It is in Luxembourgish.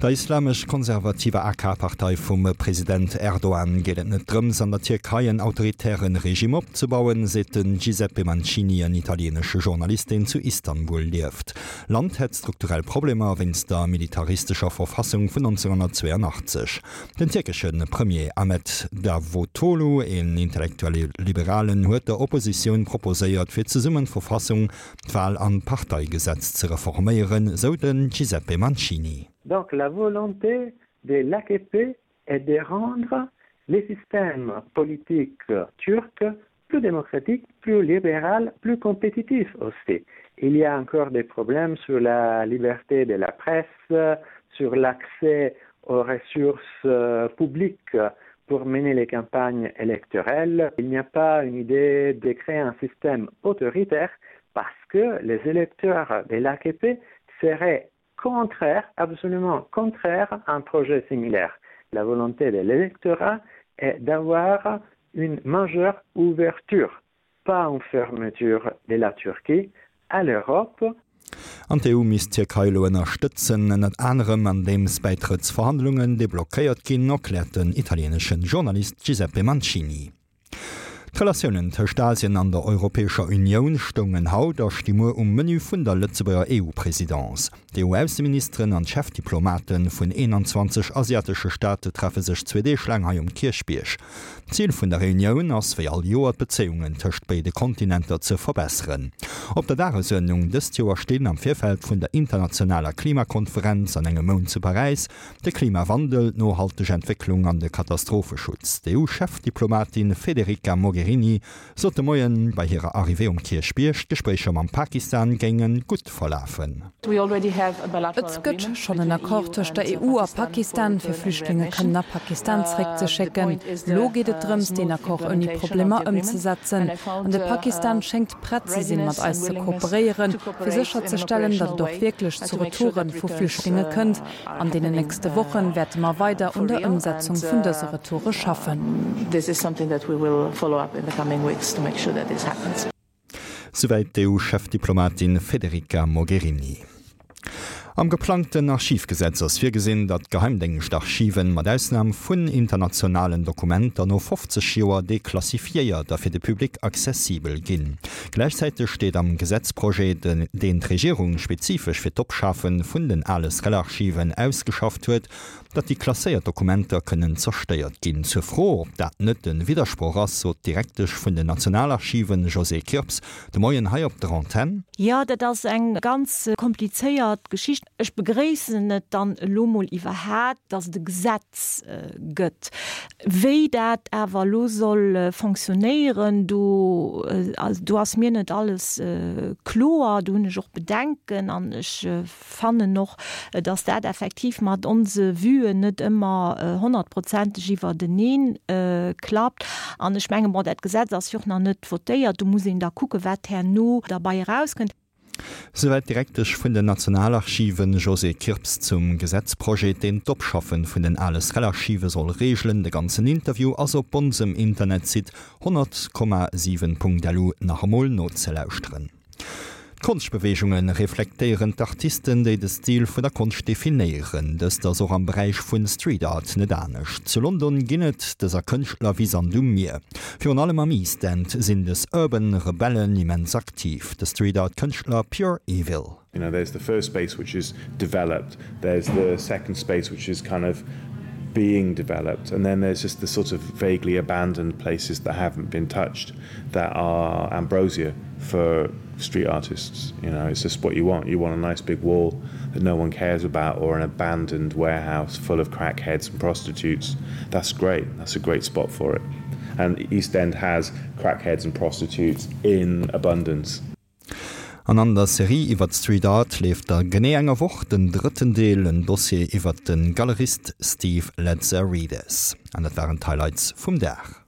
Der islamesch-konservativer AK-Partei vum President Erdogan geet et net drëms, an der Tierkei en autoritäre Regime opzebauen, seet den Giuseppe Mancini, en italieenesche Journalist, deen zu Istanbul lieft. D'Land hätt strukturell Problemer wéinst der militaristescher Verfassung vun 1982. Den tierkesche Premier Ahmet Davutoglu, een intellektuelle Liberalen, huet der Oppositioun proposéiert, fir zesummen d'Verfassung, d'Wal an d'Parteigesetz ze reforméieren, sou de Giuseppe Mancini. Donc la volonté de l'AKP est de rendre le système politique turc plus démocratique, plus libéral, plus compétitif aussi. Il y a encore des problèmes sur la liberté de la presse, sur l'accès aux ressources publiques pour mener les campagnes électorales. Il n'y a pas une idée de créer un système autoritaire parce que les électeurs de l'AKP seraient contraires, absolument contraires à un projet similaire. La volonté de l'électorat est d'avoir une majeure ouverture, pas une fermeture de la Turquie à l'Europe. An d'EU misst d'Tierkei elo ënnerstëtzen, ënnert anerem andeems Bäitrëttsverhandlungen deblockéiert ginn, erkläert den italieenesche Journalist Giuseppe Mancini. D'Relatiounen tëscht Asien an der Europäescher Unioun stoungen haut a sti muer um Menü vun der Lëtzebuerger EU-Presidence. D'EU-Ausseministeren an d'Chefdiplomate vun 21 asiatesche Staate treffe sech zwee Deeg laang hei um Kierchbierg. D'Zil vun der Reunioun ass wéi all Joer d'Bezéiungen tëscht béide Kontinenter ze verbesseren. Op der Dagesuerdnung dëst Joer stinn am Virfeld vun der internationaler Klimakonferenz an engem Mount zu Paräis De Klimawandel, d'nohalteg Entwécklung an de Katastropheschutz. D'EU-Chefdiplomatin Federica Mogherini sot de Moien bei hirer Arrivée um Kierchbierg, d'Gespréicher mam Pakistan géinge gutt verlafen. Et gëtt schonn en Accord tëscht der EU a Pakistan, fir Flüchtlinge kënnen a Pakistan zeréckzeschécken. Elo geet et drëms, deen Accord ouni Problemer ëmzesetzen. An de Pakistan schéngt prett ze sinn, mat eis ze kooperéieren, fir sécherzestellen, datt et och wierklech zu Retoure vu Flüchtlinge kënnt. An deenen nächste Wochen wäerte mer weider un der Ëmsetzung vun dëse Retoure schaffen. Souwäit d'EU-Chefdiplomatin Federica Mogherini. Am geplangten Archivgesetz ass virgesinn, datt d'Geheimdéngschtarchiven, mat Ausnam vun internationalen Dokumenter, no 50 Joer deklassifiéiert a fir de Public accessibel ginn. Gläichzäiteg steet am Gesetzprojet, deen d'Regierung spezifesch fir d'Opschafe vun den ale SREL-Archiven ausgeschafft huet, datt déi klasséiert Dokumenter kënnen zerstéiert ginn. Zur Fro, ob dat net e Widdersproch ass, sot d'Direktesch vun den Nationalarchiven, Josée Kirps, de Moien hei op der Antenn. Jo, dat ass eng ganz komplizéiert Geschicht. Ech begréissen et dann elo mol iwwerhat, dass et e Gesetz gëtt. Wéi dat awer elo soll fonctionnéieren, do, do ass mir net alles kloer. Do hunn ech och Bedenken an ech fannen och, dass dat effektiv mat onse Vuen net ëmmer honnertprozenteg iwwerteneen klappt. An ech mengen, bon, dat Gesetz ass jo och nach net votéiert, do muss een da kucken, wat herno derbei erauskënnt. Souwäit d'Direktesch vun den Nationalarchiven, Josée Kirps, zum Gesetzprojet, deen d'Opschaffe vun den ale SREL-Archive soll reegelen. De ganzen Interview ass op onsem Internetsite 100,7.lu nach emol nozelauschteren. D'Konschtbeweegunge reflektéieren d'Artisten, déi de Stil vun der Konscht definéieren. Dëst ass och am Beräich vu Street Art net anescht. Zu London ginn et dëser Kënschtler wéi Sand um Mier. Virun allem am East End sinn des Urban Rebellen immens aktiv. De Street Art Kënschtler Pure Evil. You know, there's the first space which is developed, there's the second space which is kind of being developed and then there's just the sort of vaguely abandoned places that haven't been touched that are ambrosia for street artists. You know, it's just what you want. You want a nice big wall that no one cares about or an abandoned warehouse full of crackheads and prostitutes. That's great. That's a great spot for it. And East End has crackheads and prostitutes in abundance. An an der Serie iwwert Street Art leeft a genee enger Woch den drëtten Deel, en Dossier iwwert de Galerist Steve Lazarides. An dat waren d'Highlights vum Dag.